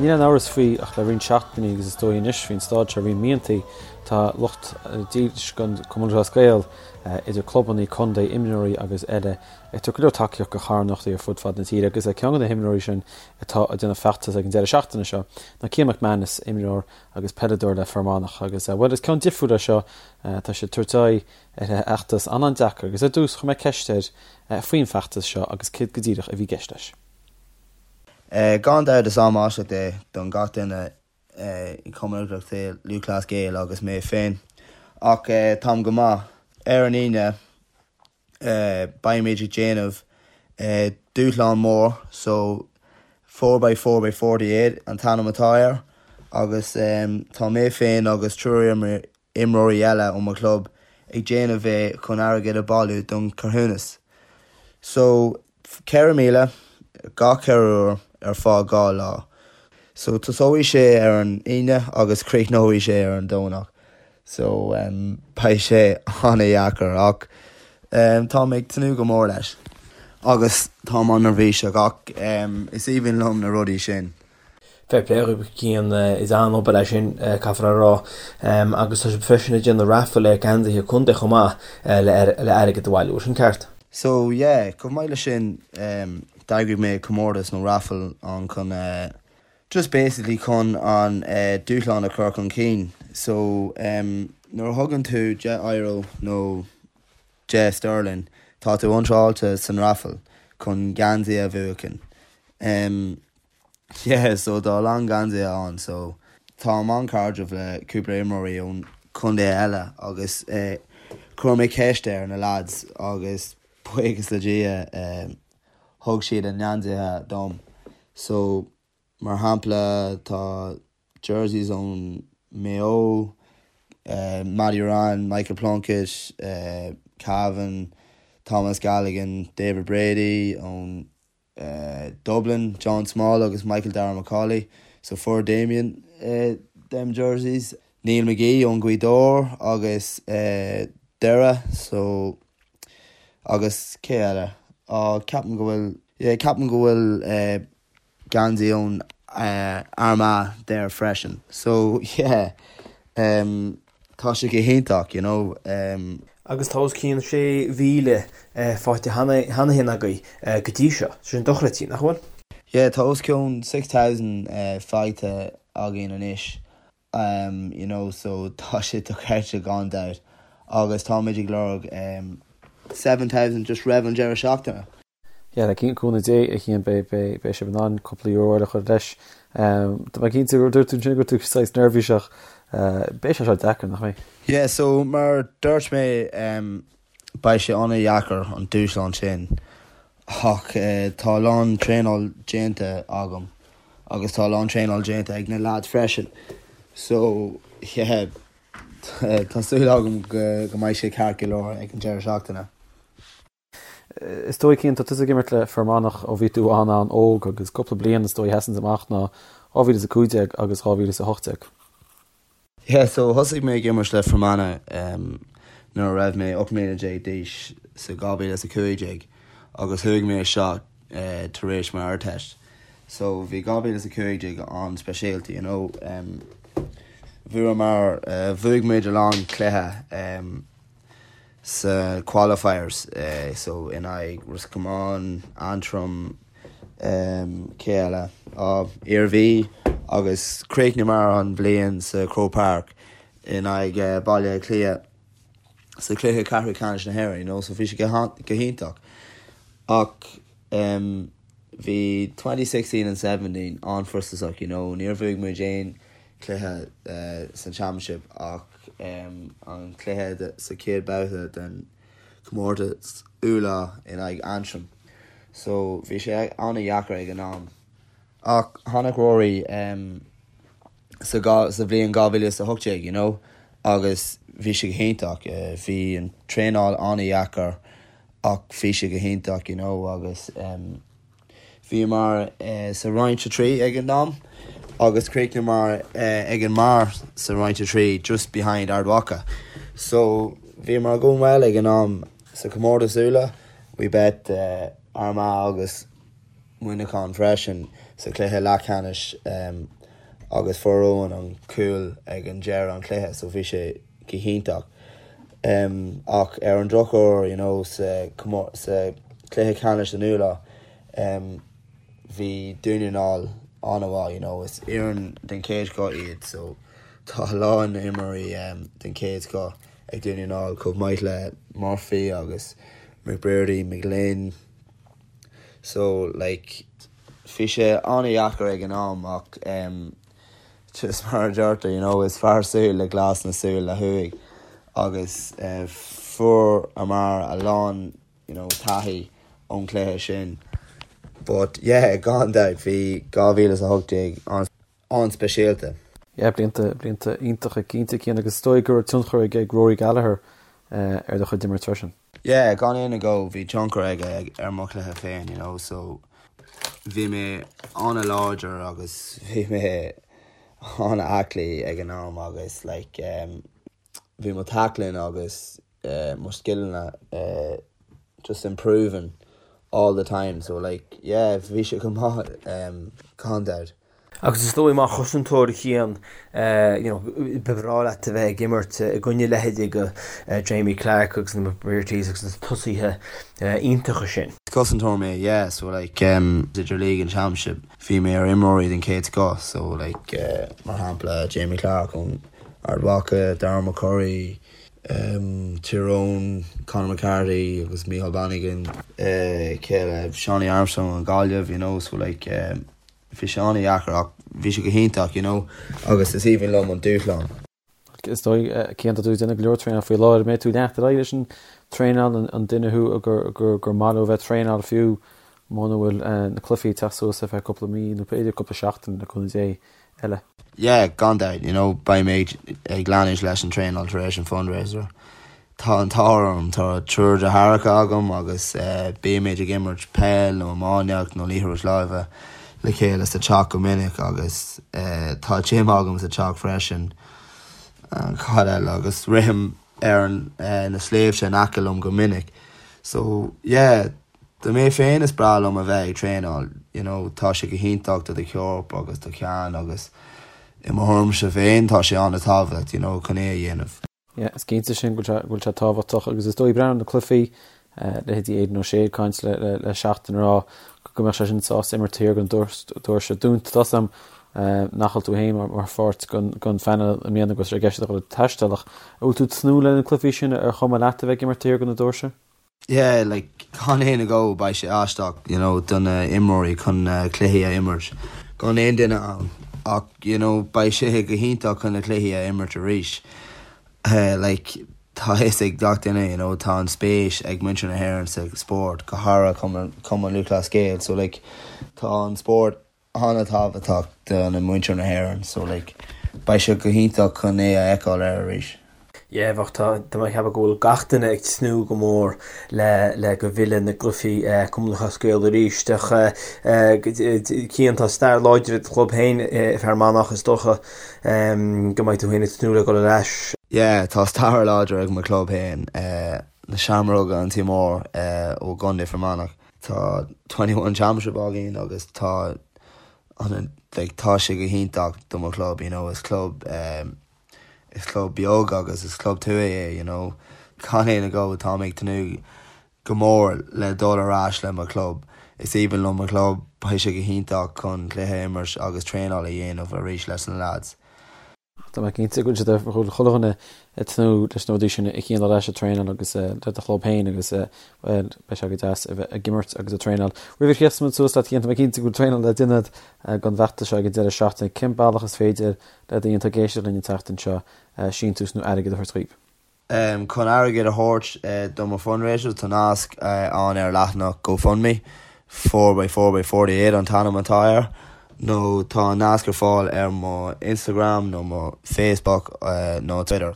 Níl aon amhras faoi ach le roinnt seachtainí agus is dóigh anois faoin staid seo roinnt míontaí, tá lucht dílis den Chumann Lúthchleas Gael, idir clubannaí, contae, imreoirí agus eile, ag tabhairt go leor tacaíocht do charthanachtaí ar fud fad na tíre agus ceann de na himreoirí sin atá ag déanamh feachtas ag an deireadh seachtaine seo ná Cian McManus, imreoir agus peileadóir le Fear Manach agus, bhuel, is ceann difriúil é seo, tá sé ag tabhairt aghaidh ar fheachtas an-an-deacair agus ar dtús chuir mé ceist air faoin bhfeachtas seo agus céard go díreach a bhí i gceist leis. Gan dabht is am aisteach é don gach duine i Cumann Lúthchleas Gael agus mé féin ach táim go maith. Ar an Aoine beimid ag déanamh dúshlán mór so 4x4x48 an t-ainm atá air agus tá mé féin agus triúr imreoirí eile ó mo chlub ag déanamh é chun airgead a bailiú don carthanas. So, 4,000 gach 4 uair ar feadh 2 lá. So, tosóidh sé ar an Aoine agus críochnóidh sé ar an Domhnach. So, beidh sé an-dheacair ach táim ag tnúth go mór leis. Agus táim an-neirbhíseach ach is aoibhinn liom na rudaí sin. Fair play dhaoibh, Cian, is an-obair é sin, caithfear a rá. Agus tá sibh freisin ag déanamh raffle ar geansaithe contae chomh maith le airgead a bhailiú, sin ceart? So yeah, chomh maith leis sin, d'eagraigh mé comórtas nó raffle ann chun just basically chun an dúshlán a chur chun cinn. So nuair a thugann tú 10 euro nó 10 sterling, tá tú iontráilte san raffle chun geansaí a bhuachan. Yeah so tá a lán geansaithe ann so táim an-chairdiúil le cúpla imreoirí ón chontae eile agus chuir mé ceist ar na lads agus buíochas le Dia thug siad a ngeansaithe dom so mar shampla tá jerseys ón Maigh Eo, Matty Ruane, Michael Plunkett, Cavan, Thomas Galligan, David Brady ón Dublin, John Small agus Michael Darragh Macauley, so fuair Damien them jerseys. Neil McGee ón Gaoth Dobhair agus Doire so agus cé eile? Á ceapaim go bhfuil yeah ceapaim go bhfuil geansaí ón Armagh there freisin so yeah tá sé go hiontach you know. Agus tá os cionn 6,000 faighte cheana féin agaibh go dtí seo, sin dochreidte, nach bhfuil? Yeah tá os cionn 6,000 faighte againn anois you know so tá sé dochreidte gan dabht agus táimid ag lorg 7,000 just roimh an deireadh seachtaine. Yeah, le cúnamh Dé, a Chian, beidh sibh in ann cúpla euro eile a chur leis. Tá mé cinnte, dúirt tú ansin go raibh tú saghas neirbhíseach. Beidh sé seo deacair, nach mbeidh? Yeah, so mar dúirt mé, beidh sé an-dheacair an dúshlán sin ach tá a lán traenáil déanta agam agus tá a lán traenáil déanta ag na lads freisin. So, yeah, tá súil agam go mbeidh sé ceart go leor ag an deireadh seachtaine. Is dóigh, Cian, tá tusa ag imirt le Fear Manach ó bhí tú an-an-óg agus cúpla bliain is dóigh a sheasanns amach ná 2015 agus 2018. Yeah, so thosaigh mé ag imirt le Fermanagh nuair a raibh mé 18 mbliana d'aois sa 2015 agus chuaigh mé isteach tar éis m'Ardteist. So bhí 2015 an-speisialta, you know. Bhuamar, bhuaigh muid a lán cluiche. sa qualifiers so in aghaidh Ros Comáin, Antrim, cé eile? Á, Iarmhí agus chríochnaíomar an bhliain sa Croke Park in aghaidh Baile Átha Cliath sa chluiche ceathrú ceannais na hÉireann, you know, so bhí sé go hiontach. Ach bhí 2016 and 17 an-fhrustrásach, you know, níor bhuaigh muid aon cluiche san Championship ach an cluiche sa chéad babhta den chomórtas Uladh in aghaidh Antrim. So bhí sé an-dheacair ag an am. Ach tháinig Rory sa sa bhliain 2018 you know agus bhí sé go hiontach. Bhí an traenáil an-dheacair ach bhí sé go hiontach you know agus Bhíomar sa Roinn 3 ag an am agus chríochnaíomar ag an mbarr sa Roinn 3, just behind Ard Mhacha. So bhíomar going well ag an am sa chomórtas Uladh. We beat Armagh agus Muineachán freisin. sa chluiche leathcheannais agus fuair Eoin an cúl ag an deireadh an chluiche so bhí sé go hiontach. Ach ar an drochuair you know sa sa chluiche ceannais an Uladh bhí Dún na nGall an-mhaith you know is fhoireann den chéad scoth iad so tá a lán imreoirí den chéad scoth ag Dún na nGall chomh maith le Murphy agus McBrearty, McGlynn so like bhí sé an-dheacair ag an am ach just mar a deirtear you know is fearr súil le glas ná súil le huaigh agus fuaireamar a lán you know taithí ón chluiche sin but yeah gan dabht bhí 2018 an an-speisialta. Yeah, blianta, blianta iontacha cinnte, Cian, agus is dóigh go raibh tionchar ag ag Rory Gallagher ar do chuid imirt freisin. Yeah, gan aon agó, bhí tionchar aige ar mo chluiche féin, you know, so bhí mé an-láidir agus bhí mé an-aclaí ag an am agus like um, bhí mo tackling agus mo scileanna just improving all the time so like yeah bhí sé go maith gan dabht. Agus is dóigh mar chosantóir a Chian you know ba bhreá leat a bheith ag imirt i gcoinne leithéidí de Jamie Clarke agus na McBreartys agus na tosaithe iontacha sin. Cosantóir mé yeah so like idir League and Championship bhí mé ar imreoirí den chéad scoth so like mar shampla Jamie Clarke ón Ard Mhacha, Darren McCurry, Tyrone, Conor McCarthy agus Micheál Bannigan, cé eile, Seánie Armstrong ón Gaillimh, you know, so like bhí sé an-dheacair ach bhí sé go hiontach, you know, agus is aoibhinn liom an dúshlán. Is dóigh, Cian, tá tú ag déanamh go leor traenáil faoi láthair, an mbeidh tú ag leanacht ar aghaidh leis an traenáil, an duine thú gur gur maith leo bheith ag traenáil fiú muna bhfuil na cluichí ag teacht suas ar feadh cúpla mí nó b'fhéidir cúpla seachtain le cúnamh Dé eile? Yeah, gan dabht, you know, beidh mé ag leanúint leis an traenáil tar éis an fundraiser. Tá an t-ádh orm, tá triúr deartháireacha agam agus bímid ag imirt peil nó iománaíocht nó liathróid láimhe le chéile sa teach go minic agus tá gym agam sa teach freisin. Cad eile? Agus rithim ar na sléibhte in aice liom go minic. So, yeah, Do mé féin is breá liom a bheith ag traenáil, you know, tá sé go hiontach do do chorp agus do cheann agus i mo thuairimse féin tá sé an-tábhachtach, you know, chun é a dhéanamh. Yeah, is cinnte sin go bhfuil sé tábhachtach agus is dóigh breathnú ar na cluichí, leithéidí Aidan O'Shea ag caint le le Seachtain ag rá go mbeadh sé sin sásta imirt taobh thiar den doirse dúnta. Tá a fhios agam nach bhfuil tú féin mar pháirt den phainéal i mbliana agus ar gceist a dhul ag taisteal ach an bhfuil tú ag tnúth le na cluichí sin ar chuma leat a bheith ag imirt taobh thiar de na doirse? Yeah, like, gan aon agó, beidh sé aisteach, you know, do na imreoirí chun na cluichí a imirt gan aon duine ann ach, you know, beidh sé go hiontach chun na cluichí a imirt arís. Like, tá a fhios ag gach duine, you know, tá an spéis ag muintir na hÉireann sa spórt, go háirithe Cumann Lúthchleas Gael, so like, tá an spórt an-tábhachtach do na muintir na hÉireann so like beidh sé go hiontach chun é a fheiceáil ar arís. Yeah bheadh tá tá mé ag ceapadh go bhfuil gach duine ag tnúth go mór le le go bhfilleadh na gcluichí Cumann Lúthchleas Gael arís ach Cian tá stair láidir ag do chlub féin i Fear Manach is dócha go mbeidh tú féin ag tnúth le dul ar ais. Yeah tá stair láidir ag mo chlub féin na Seamróga an Tí Mór ó gContae Fear Manach. Tá 21 Championship againn agus tá an like tá sé go hiontach do mo chlub you know is club um, is club beag agus is club tuaithe é you know gan aon agó tá mé ag tnúth go mór le dul ar ais le mo chlub. Is aoibhinn liom mo chlub, beidh sé go hiontach chun cluiche a imirt agus traenáil a dhéanamh arís leis na lads. Tá mé cinnte go bhfuil siad go bhfuil chuile dhuine ag tnúth leis na rudaí sin a Chian dul ar ais ag traenáil agus le do chlub féin agus bhuel beidh sé go deas a bheith ag imirt agus ag traenáil. Roimh a chríochnóidh muid suas leat Cian, tá mé cinnte go bhfuil traenáil le déanamh don bhfeachtas seo ag an deireadh seachtaine. Cén bealach is féidir le daoine atá ag éisteacht linn an tseachtain seo síntiús nó airgead a thabhairt dhaoib? Chun airgead a thabhairt do mo fundraiser tá nasc ann ar leathanach GoFundMe, 4x4x48 an t-ainm atá air, nó tá an nasc ar fáil ar mo Instagram nó mo Facebook nó Twitter.